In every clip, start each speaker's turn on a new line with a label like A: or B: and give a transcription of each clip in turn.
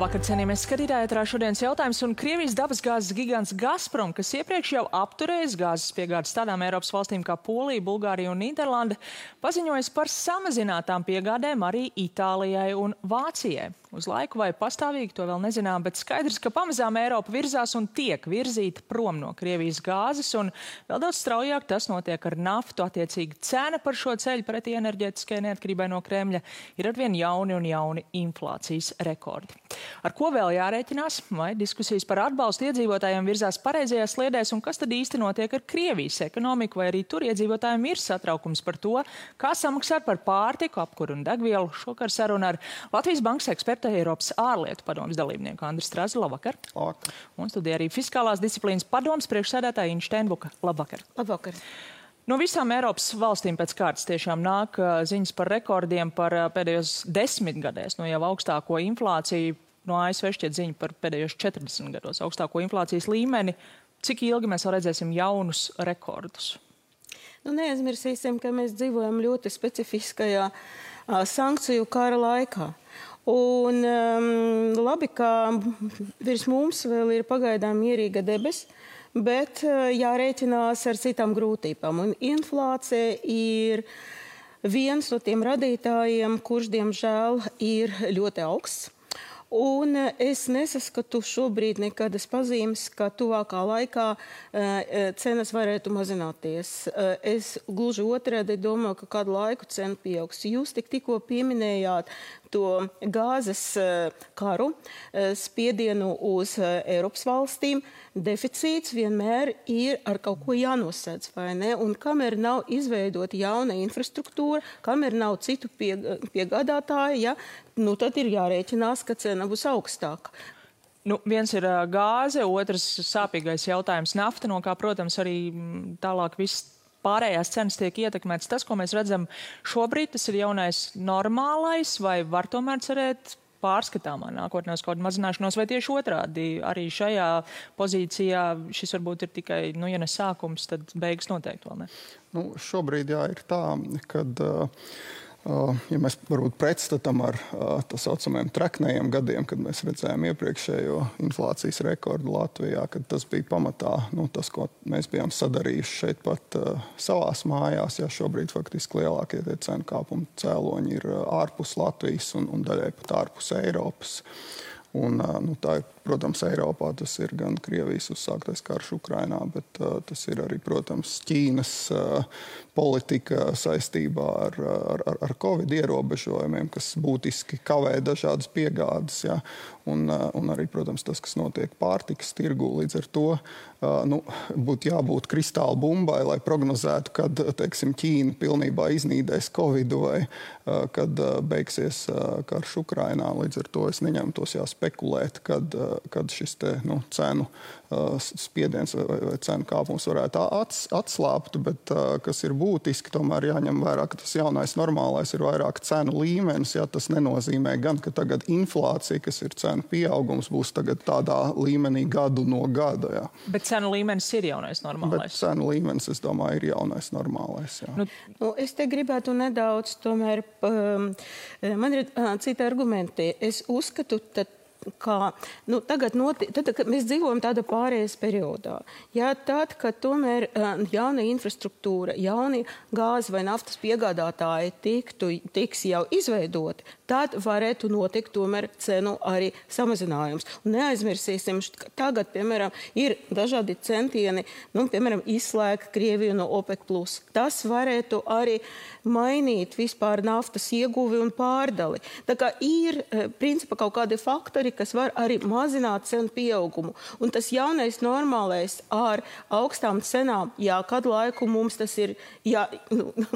A: Labvakar, cienījamies skatītāji, ēterā šodienas jautājums, un Krievijas dabasgāzes gigants Gazprom, kas iepriekš jau apturējis gāzes piegādes tādām Eiropas valstīm kā Polija, Bulgārija un Nīderlanda, paziņojas par samazinātām piegādēm arī Itālijai un Vācijai. Uz laiku vai pastāvīgi to vēl nezinām, bet skaidrs, ka pamazām Eiropa virzās un tiek virzīta prom no Krievijas gāzes, un vēl daudz straujāk tas notiek ar naftu. Attiecīgi cena par šo ceļu pretī enerģētiskajai neatkarībai no Kremļa ir arvien jauni un jauni inflācijas rekordi. Ar ko vēl jārēķinās? Vai diskusijas par atbalstu iedzīvotājiem virzās pareizajās sliedēs, un kas tad īsti notiek ar Krievijas ekonomiku, vai arī tur iedzīvotājiem ir satraukums par to, kā samaksāt par pārtiku, apkuru un degvielu? Šokar saruna ar Latvijas bankas ekspertu Eiropas ārlietu padomes dalībnieku Andri Strazu. Labvakar.
B: Labvakar.
A: Un studijā arī fiskālās disciplīnas padomes priekšsēdētāja Inša Steinbuka. Labvakar.
C: Labvakar.
A: No visām Eiropas valstīm pēc kārtas tiešām nāk ziņas par rekordiem par pēdējos 10 gadēs, no jau augstāko inflāciju. No ASV šķiet ziņa par pēdējos 40 gados augstāko inflācijas līmeni. Cik ilgi mēs vēl redzēsim jaunus rekordus?
C: Neaizmirsīsim, ka mēs dzīvojam ļoti specifiskajā sankciju kara laikā. Un labi, ka virs mums vēl ir pagaidām mierīga debes, bet jārēķinās ar citām grūtībām. Un inflācija ir viens no tiem radītājiem, kurš, diemžēl, ir ļoti augsts. Un es nesaskatu šobrīd nekādas pazīmes, ka tuvākā laikā cenas varētu mazināties. Es gluži otrādi domāju, ka kādu laiku cena pieaugs. Jūs tikko pieminējāt to gāzes karu, spiedienu uz Eiropas valstīm. Deficīts vienmēr ir ar kaut ko jānosedz, vai ne? Un kamēr nav izveidota jauna infrastruktūra, kamēr nav citu piegādātāju, tad ir jārēķinās, ka cena būs augstāka.
A: Viens ir gāze, otrs sāpīgais jautājums nafta, no kā, protams, arī tālāk viss pārējās cenas tiek ietekmētas. Tas, ko mēs redzam šobrīd, tas ir jaunais normālais, vai var tomēr cerēt pārskatāmā nākotnē uz kaut kādu mazināšanos, vai tieši otrādi arī šajā pozīcijā šis varbūt ir tikai, ja ne sākums, tad beigas noteikti vēl ne?
B: Šobrīd ir tā, kad ja mēs varbūt pretstatam ar tā saucamajiem treknējiem gadiem, kad mēs redzējām iepriekšējo inflācijas rekordu Latvijā, kad tas bija pamatā tas, ko mēs bijām sadarījuši šeit pat savās mājās. Šobrīd faktiski lielākie tie cenu kāpumu cēloņi ir ārpus Latvijas un daļai pat ārpus Eiropas. Un, tā ir, protams, Eiropā tas ir gan Krievijas uzsāktais karš Ukrainā, bet tas ir arī, protams, Ķīnas politika saistībā ar Covid ierobežojumiem, kas būtiski kavē dažādas piegādes. Un arī, protams, tas, kas notiek pārtikas tirgū, līdz ar to būtu jābūt kristāla bumbai, lai prognozētu, kad, teiksim, Ķīna pilnībā iznīdēs Covidu vai kad beigsies karš Ukrainā. Līdz ar to es neņemtos spekulēt, kad šis te, cenu spiediens vai cenu kāpums varētu atslābt, bet kas ir būtiski, tomēr jāņem vērā, ka tas jaunais normālais ir vairāk cenu līmenis. Tas nenozīmē gan, ka tagad inflācija, kas ir cenu pieaugums, būs tagad tādā līmenī gadu no gada.
A: Bet cenu līmenis ir jaunais normālais?
B: Bet cenu līmenis, es domāju, ir jaunais normālais.
C: Es te gribētu nedaudz, tomēr, man ir citi argumenti. Es uzskatu, ka tagad kad mēs dzīvojam tādā pārējais periodā. Tad, kad tomēr jauna infrastruktūra, jauni gāzes vai naftas piegādātāji tiks jau izveidoti, tad varētu notikt tomēr cenu arī samazinājums. Un neaizmirsīsim, ka tagad, piemēram, ir dažādi centieni, piemēram, izslēgt Krieviju no OPEC+. Tas varētu arī mainīt vispār naftas ieguvi un pārdali. Tā kā ir, principā, kaut kādi faktori, kas var arī mazināt cenu pieaugumu. Un tas jaunais normālais ar augstām cenām, kādu laiku mums tas ir,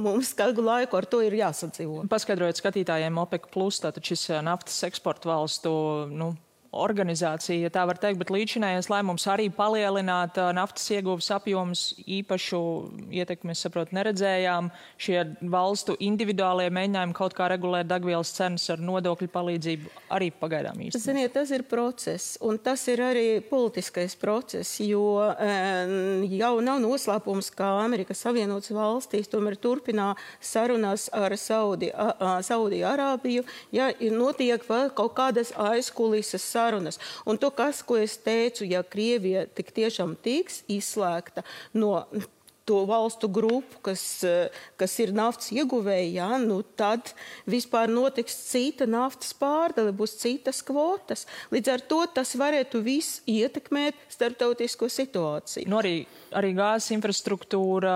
C: mums kādu laiku ar to ir jāsadzīvo.
A: Paskaidrojot skatītājiem OPEC+, tātad šis naftas eksporta valstu, organizācija, ja tā var teikt, bet līdzinājais lēmums arī palielināt naftas ieguves apjomus, īpašu ietekmi, es saprotu, neredzējām. Šie valstu individuālie mēģinājumi kaut kā regulēt degvielas cenas ar nodokļu palīdzību arī pagaidām īsti.
C: Ziniet, tas ir process, un tas ir arī politiskais process, jo jau nav noslēpums, ka Amerikas Savienotas valstīs tomēr turpinā sarunās ar Saudi Arābiju, notiek vēl kaut kādas aizkulises sarunas. Un to, ko es teicu, ja Krievija tik tiešām tiks izslēgta no to valstu grupu, kas ir naftas ieguvēji, ja, nu tad vispār notiks cita naftas pārdale, būs citas kvotas. Līdz ar to tas varētu viss ietekmēt starptautisko situāciju.
A: Nu, arī gāzes infrastruktūra,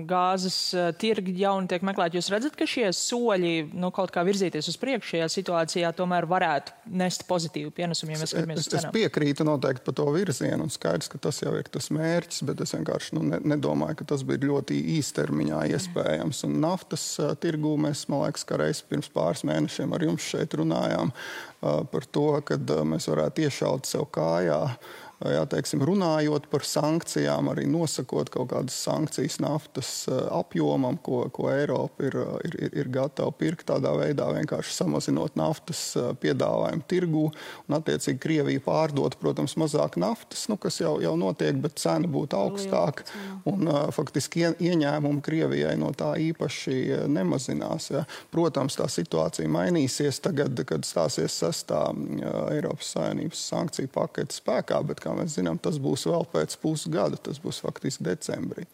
A: gāzes tirgi jauni tiek meklēti. Jūs redzat, ka šie soļi kaut kā virzīties uz priekšu šajā situācijā tomēr varētu nest pozitīvu pienesumu, ja mēs skatāmies uz cenām?
B: Es piekrītu noteikti par to virzienu, un skaidrs, ka tas jau ir tas mērķis, bet es vienkārši nedomāju, ka tas bija ļoti īstermiņā iespējams. Un naftas tirgū mēs, man liekas, ka reiz pirms pāris mēnešiem ar jums šeit runājām par to, kad mēs varētu iešaut sev kājā. Jā, teiksim, runājot par sankcijām, arī nosakot kaut kādas sankcijas naftas apjomam, ko Eiropa ir gatava pirkt, tādā veidā vienkārši samazinot naftas piedāvājumu tirgū, un attiecīgi Krievija pārdot, protams, mazāk naftas, kas jau notiek, bet cena būtu augstāka, un faktiski ieņēmumi Krievijai no tā īpaši nemazinās. Ja. Protams, tā situācija mainīsies tagad, kad stāsies 6. Eiropas Savienības sankciju pakete spēkā, bet kā mēs zinām, tas būs vēl pēc pusgada, tas būs faktiski decembrī.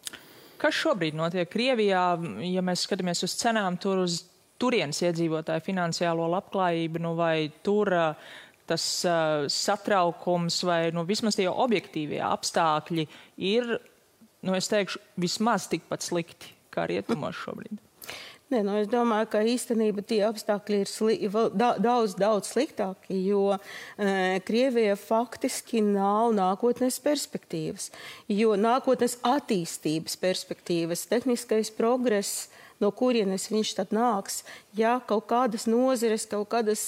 A: Kas šobrīd notiek Krievijā, ja mēs skatāmies uz cenām, tur uz turienes iedzīvotāju finansiālo labklājību, vai tur tas satraukums vai vismaz tie objektīvie apstākļi ir, es teikšu, vismaz tikpat slikti kā rietumos šobrīd?
C: Nē, es domāju, ka īstenībā tie apstākļi ir daudz sliktāki, jo Krievija faktiski nav nākotnes perspektīvas, jo nākotnes attīstības perspektīvas, tehniskais progress, no kurienes viņš tad nāks, ja kaut kādas nozeres, kaut kādas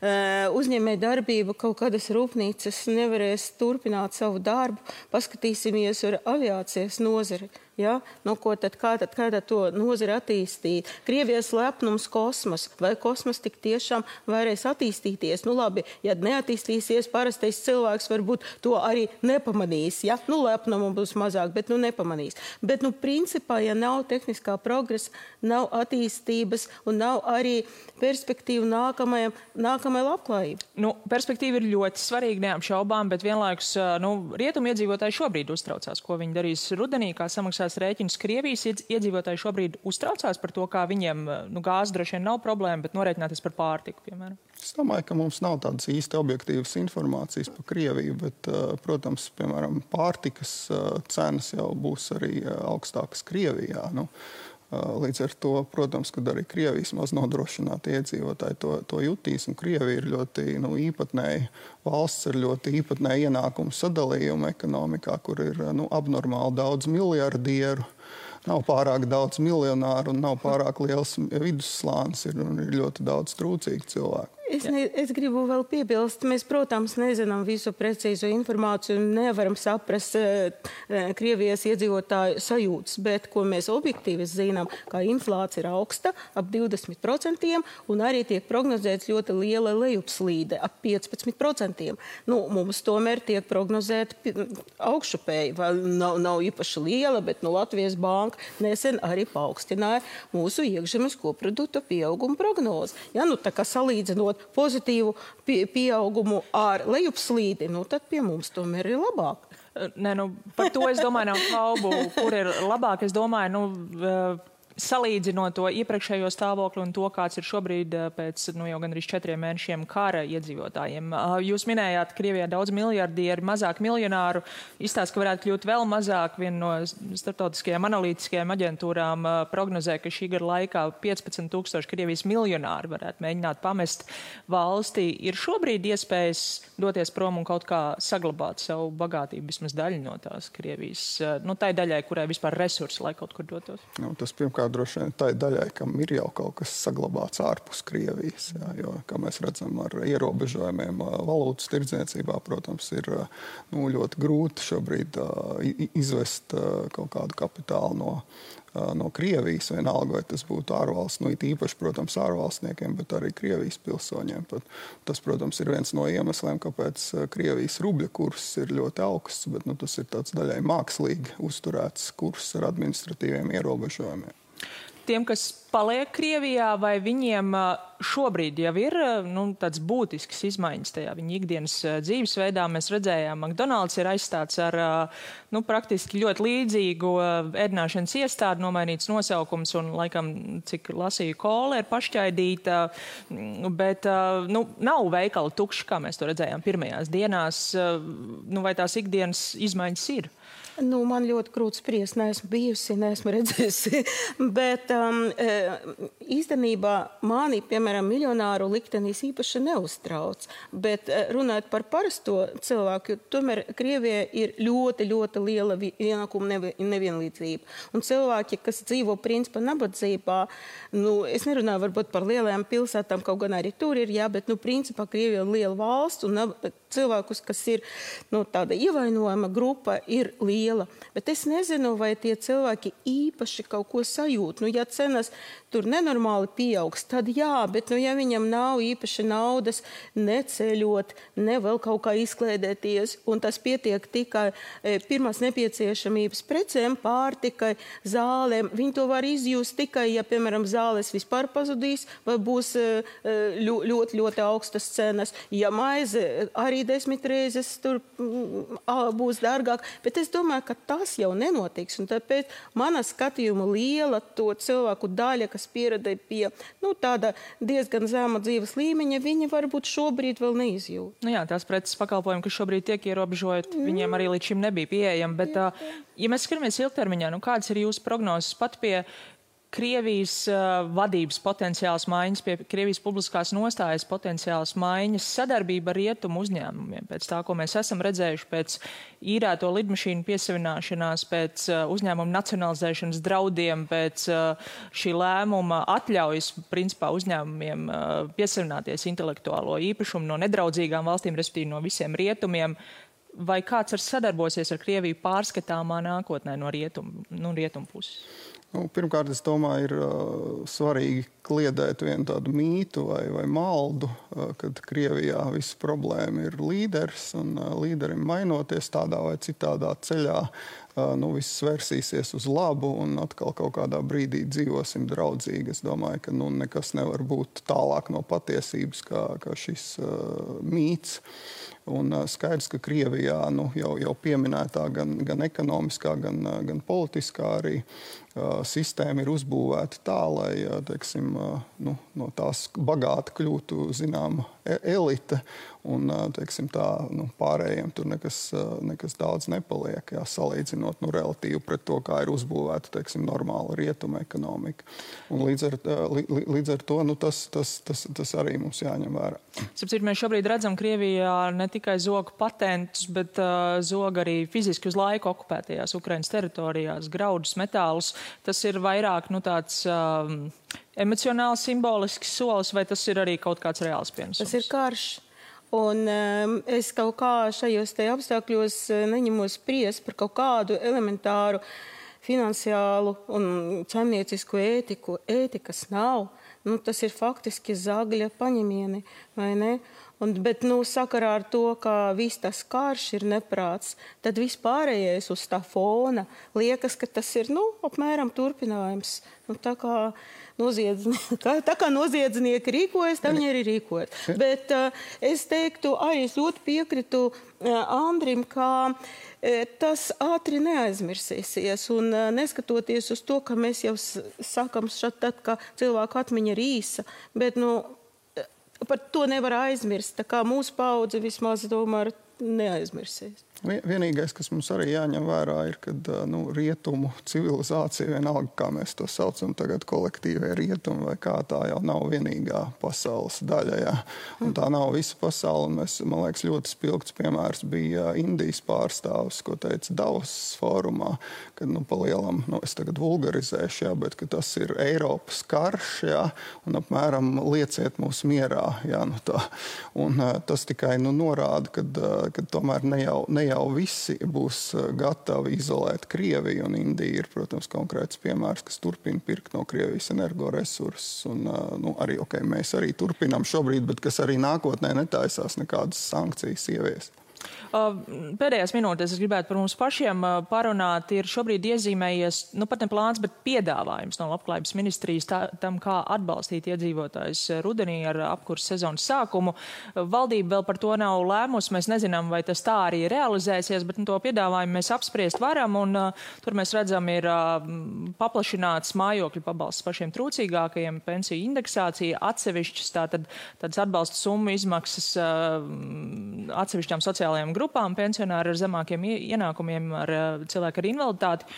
C: uzņēmēja darbība, kaut kādas rūpnīcas nevarēs turpināt savu darbu. Paskatīsimies ar aviācijas nozari. Ja? Kā tad to nozari attīstīt? Krievijas lepnums kosmos. Vai kosmos tik tiešām varēs attīstīties? Labi, ja neattīstīsies, parastais cilvēks varbūt to arī nepamanīs. Ja? Lepnumu būs mazāk, bet nepamanīs. Bet, principā, ja nav tehniskā progresa, nav attīstības un nav arī perspektīva nākamajai labklājībai.
A: Perspektīva ir ļoti svarīga, neapšaubām, bet vienlaikus rietumu iedzīvotāji šobrīd uztraucās, ko viņi darīs rudenī, kā samaksās rēķinus. Krievijas iedzīvotāji šobrīd uztraucās par to, kā viņiem gāze droši vien nav problēma, bet norēķināties par pārtiku, piemēram.
B: Es domāju, ka mums nav tādas īsti objektīvas informācijas par Krieviju, bet, protams, piemēram, pārtikas cenas jau būs arī augstākas Krievijā. Līdz ar to, protams, kad arī Krievijas maz nodrošināti iedzīvotāji to jutīs, un Krievija ir ļoti īpatnēja valsts ar ļoti īpatnēju ienākumu sadalījumu ekonomikā, kur ir abnormāli daudz miljardieru, nav pārāk daudz miljonāru un nav pārāk liels vidusslānis, ir ļoti daudz trūcīgu cilvēku.
C: Es gribu vēl piebilst, mēs, protams, nezinām visu precīzu informāciju un nevaram saprast Krievijas iedzīvotāju sajūtas, bet ko mēs objektīvi zinām, ka inflācija ir augsta, ap 20%, un arī tiek prognozēts ļoti liela lejupslīde, ap 15%. Mums tomēr tiek prognozēta augšupēji, nav īpaši liela, bet Latvijas banka nesen arī paaugstināja mūsu iekšzemes koprodukta pieauguma prognozi. Ja, tā kā salīdzinot pozitīvu pieaugumu ar lejupslīdi, tad pie mums tomēr ir labāk.
A: Par to es domāju nav šaubu, kur ir labāk. Es domāju, salīdzinot to iepriekšējo stāvokli un to, kāds ir šobrīd pēc jau gandrīz 4 mēnešiem kara iedzīvotājiem. Jūs minējāt, Krievijā daudz miljardieri, mazāk miljonāru. Izstāst, ka varētu kļūt vēl mazāk. Viena no starptautiskajām analītiskajām aģentūrām prognozē, ka šī gada laikā 15,000 Krievijas miljonāri varētu mēģināt pamest valstī. Ir šobrīd iespējas doties prom un kaut kā saglabāt savu bagātību, vismaz daļu no tās Krievijas, tai daļai, kurai vispār resursi, lai kaut kur dotos?
B: Tas pirmkārt droši vien tai daļai, kam ir jau kaut kas saglabāts ārpus Krievijas, jo, kā mēs redzam, ar ierobežojumiem valūtas tirdzniecībā, protams, ir ļoti grūti šobrīd izvest kaut kādu kapitālu no Krievijas, vienalga, vai tas būtu ārvalsts, it īpaši, protams, ārvalstniekiem, bet arī Krievijas pilsoņiem. Tas, protams, ir viens no iemesliem, kāpēc Krievijas rubļa kurs ir ļoti augsts, bet tas ir tāds daļai mākslīgi uzturēts kurs ar administratīviem ierobežojumiem.
A: tiem, kas paliek Krievijā, vai viņiem šobrīd jau ir tāds būtisks izmaiņas tajā viņa ikdienas dzīvesveidā? Mēs redzējām, McDonald's ir aizstāts ar praktiski ļoti līdzīgu ēdināšanas iestādi, nomainīts nosaukums un, laikam, cik lasīju, kola ir pašķaidīta, bet nav veikali tukši, kā mēs to redzējām pirmajās dienās. Vai tās ikdienas izmaiņas ir?
C: Man ļoti grūti spriest, neesmu bijusi, neesmu redzējusi, bet īstenībā mani, piemēram, miljonāru liktenis īpaši neuztrauc, bet runājot par parasto cilvēku, tomēr Krievijā ir ļoti, ļoti liela ienākuma nevienlīdzība. Un cilvēki, kas dzīvo principā nabadzībā, es nerunāju varbūt par lielajām pilsētām, kaut gan arī tur ir, bet principā Krievija ir liela valsts un cilvēkus, kas ir tāda ievainojama grupa, ir liela. Bet es nezinu, vai tie cilvēki īpaši kaut ko sajūt. Ja cenas tur nenormāli pieaugs, tad jā, bet ja viņam nav īpaši naudas neceļot, ne vēl kaut kā izklēdēties, un tas pietiek tikai pirmās nepieciešamības precēm, pārtikai, zālēm, viņi to var izjust tikai, ja, piemēram, zāles vispār pazudīs, vai būs ļoti, ļoti augstas cenas. Ja maize arī 10 reizes tur būs dārgāk, bet es domāju, ka tas jau nenotiks, un tāpēc mana skatījuma liela to cilvēku daļa, kas pieredē pie tāda diezgan zema dzīves līmeņa, viņi varbūt šobrīd vēl neizjūt.
A: Jā, tās preces pakalpojumi, kas šobrīd tiek ierobežot, viņiem arī līdz šim nebija pieejami, bet, ja mēs skatāmies ilgtermiņā, kādas ir jūsu prognozes pat pie Krievijas vadības potenciāls maiņas, pie Krievijas publiskās nostājas potenciāls maiņas, sadarbība ar rietumu uzņēmumiem, pēc tā, ko mēs esam redzējuši, pēc īrēto lidmašīnu piesavināšanās, pēc uzņēmumu nacionalizēšanas draudiem, pēc šī lēmuma atļaujas, principā, uzņēmumiem piesavināties intelektuālo īpašumu no nedraudzīgām valstīm, respektīvi no visiem rietumiem. Vai kāds sadarbosies ar Krieviju pārskatāmā nākotnē no rietumu puses?
B: Pirmkārt, es domāju, ir svarīgi kliedēt vienu tādu mītu vai maldu, kad Krievijā visa problēma ir līderis, un līderim mainoties tādā vai citādā ceļā, viss vērsīsies uz labu, un atkal kaut kādā brīdī dzīvosim draudzīgi. Es domāju, ka nekas nevar būt tālāk no patiesības, kā šis mīts. Un skaidrs, ka Krievijā jau pieminētā gan ekonomiskā, gan politiskā arī sistēma ir uzbūvēta tā, lai, teiksim, no tās bagāti kļūtu, zinām, elite, un, teiksim, tā, pārējiem tur nekas daudz nepaliek, salīdzinot, relatīvi pret to, kā ir uzbūvēta, teiksim, normāla rietuma ekonomika. Un līdz ar to, tas arī mums jāņem vērā.
A: Sapcīt, mēs šobrīd redzam Krievijā ne tikai zogu patentus, bet zog arī fiziski uz laiku okupētajās Ukrainas teritorijās, graudus, metālus. Tas ir vairāk, tāds emocionāls, simbolisks solis, vai tas ir arī kaut kāds reāls pienesums?
C: Tas ir karš. Un es kaut kā šajos te apstākļos neņemos spriest par kaut kādu elementāru finansiālu un saimniecisku ētiku. Ētikas nav. Tas ir faktiski zagļa paņemieni, vai ne? Bet sakarā ar to, ka viss tas karš ir neprāts, tad vispārējais uz tā fona liekas, ka tas ir, apmēram turpinājums. Tā kā noziedznieki rīkojas, tā viņi arī rīkojas. Bet es teiktu, arī es ļoti piekritu Andrim, ka tas ātri neaizmirsīsies. Un neskatoties uz to, ka mēs jau sakam tad, ka cilvēku atmiņa ir īsa, bet par to nevar aizmirst. Tā kā mūsu paudze vismaz tomēr neaizmirsīs.
B: Vienīgais, kas mums arī jāņem vērā, ir, kad rietumu civilizācija, vienalga, kā mēs to saucam tagad, kolektīvie rietumi, vai kā, tā jau nav vienīgā pasaules daļa. Jā. Un tā nav visa pasaule. Un man liekas, ļoti spilgts piemērs bija Indijas pārstāvis, ko teica Davos fórumā, kad palielam, es tagad vulgarizēšu, jā, bet ka tas ir Eiropas karš, jā, un apmēram lieciet mūs mierā. Jā, tā. Un tas tikai norāda, kad tomēr ne jau visi būs gatavi izolēt Krieviju, un Indija ir, protams, konkrēts piemērs, kas turpina pirkt no Krievijas energoresursus, un arī, mēs arī turpinām šobrīd, bet kas arī nākotnē netaisās nekādas sankcijas ieviest.
A: Pēdējās minūtēs es gribētu par mums pašiem parunāt. Ir šobrīd iezīmējies, pat ne plāns, bet piedāvājums no Labklājības ministrijas tam, kā atbalstīt iedzīvotājus rudenī ar apkurses sezonas sākumu. Valdība vēl par to nav lēmusi. Mēs nezinām, vai tas tā arī realizēsies, bet to piedāvājumu mēs apspriest varam. Un tur mēs redzam, ir paplašināts mājokļu pabalsts pašiem trūcīgākajiem, pensiju indeksācija, atsevišķas tādas atbalsta summu izmaksas atsevišķām sociālajām grupām, pensionāri ar zemākiem ienākumiem, ar cilvēku ar invaliditāti.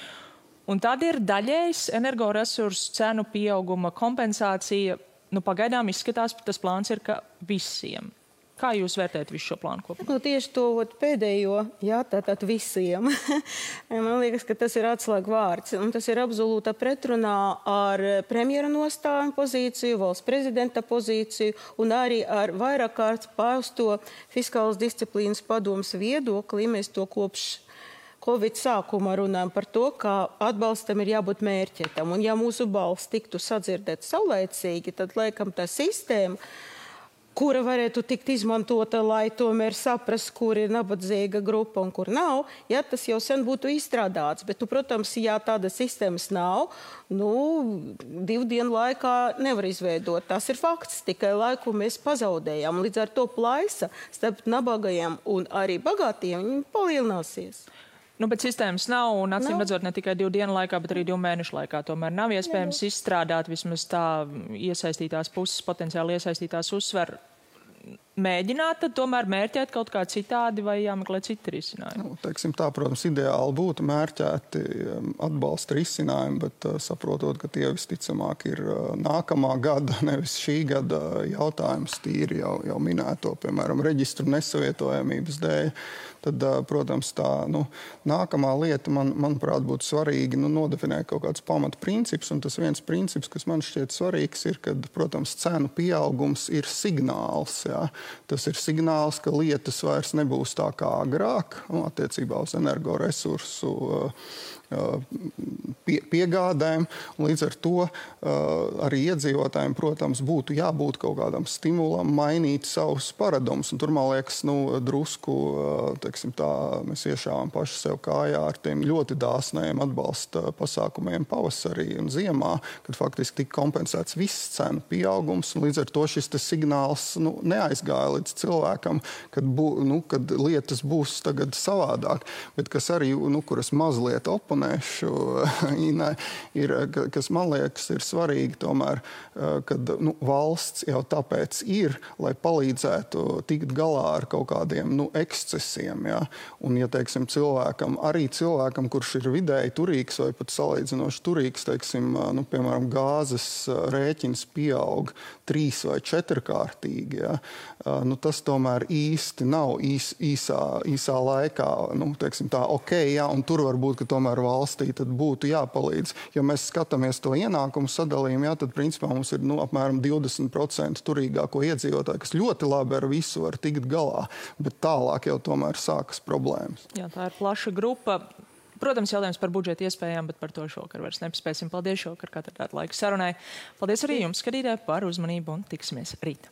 A: Un tad ir daļējs energoresursu cenu pieauguma kompensācija. Pagaidām izskatās, tas plāns ir, ka visiem. Kā jūs vērtējat visu šo plānu kopumā?
C: Tieši to pēdējo, tātad visiem. Man liekas, ka tas ir atslēga vārds. Un tas ir absolūta pretrunā ar premjera nostāju pozīciju, valsts prezidenta pozīciju un arī ar vairāk kārt pausto fiskālas disciplīnas padomas viedokli. Mēs to kopš Covid sākuma runājam par to, ka atbalstam ir jābūt mērķētam. Un ja mūsu balss tiktu sadzirdēt saulēcīgi, tad laikam tā sistēma, kura varētu tikt izmantota, lai tomēr saprast, kur ir nabadzīga grupa un kur nav, tas jau sen būtu izstrādāts. Bet, protams, ja tāda sistēmas nav, 2 dienu laikā nevar izveidot. Tas ir fakts, tikai laiku mēs pazaudējām. Līdz ar to plaisa starp nabagajiem un arī bagātiem palielināsies.
A: Bet sistēmas nav, un acīm redzot ne tikai 2 dienu laikā, bet arī 2 mēnešu laikā. Tomēr nav iespējams izstrādāt, vismaz tā iesaistītās puses, potenciāli iesaistītās uzsver, mēģināt tad tomēr mērķēt kaut kā citādi vai jāmeklē citi risinājumi?
B: Teiksim tā, protams, ideāli būtu mērķēti atbalsta risinājumi, bet saprotot, ka tie visticamāk ir nākamā gada, nevis šī gada jautājums, tīri jau minēto, piemēram, reģistru nesavietojamības dēļ. Tad, protams, tā nākamā lieta, manuprāt, būtu svarīgi nodefinēt kaut kādus pamatprincipus, un tas viens princips, kas man šķiet svarīgs, ir, kad, protams, cenu pieaugums ir signāls. Jā. Tas ir signāls, ka lietas vairs nebūs tā kā agrāk, attiecībā uz energoresursu piegādēm. Līdz ar to arī iedzīvotājiem, protams, būtu jābūt kaut kādam stimulam mainīt savus paradumus. Un tur, man liekas, drusku, teiksim tā, mēs iešāvām paši sev kājā ar tiem ļoti dāsnajiem atbalsta pasākumiem pavasarī un ziemā, kad faktiski tika kompensēts viss cenu pieaugums. Un līdz ar to šis signāls neaizgāja līdz cilvēkam, kad lietas būs tagad savādāk. Bet kas arī, kuras mazliet oponēšu, ir, kas man liekas ir svarīgi tomēr, kad valsts jau tāpēc ir, lai palīdzētu tikt galā ar kaut kādiem ekscesiem. Ja? Un, ja teiksim, cilvēkam, kurš ir vidēji turīgs vai pat salīdzinoši turīgs, teiksim, piemēram, gāzes rēķins pieaug 3 vai 4 kārtīgi, ja? Tas tomēr īsti nav īsā laikā, teiksim tā, ja, un tur varbūt, ka tomēr valstī tad būtu jāpalīdz. Ja mēs skatāmies to ienākumu sadalījumu, tad principā mums ir apmēram 20% turīgāko iedzīvotāju, kas ļoti labi ar visu var tikt galā, bet tālāk jau tomēr sākas problēmas.
A: Jā, tā ir plaša grupa. Protams, jautājums par budžeta iespējām, bet par to šokar vairs nepaspēsim. Paldies šokar, ka atradāt laiku sarunai. Paldies arī jums, skatītāji, par uzmanību un tiksimies rīt.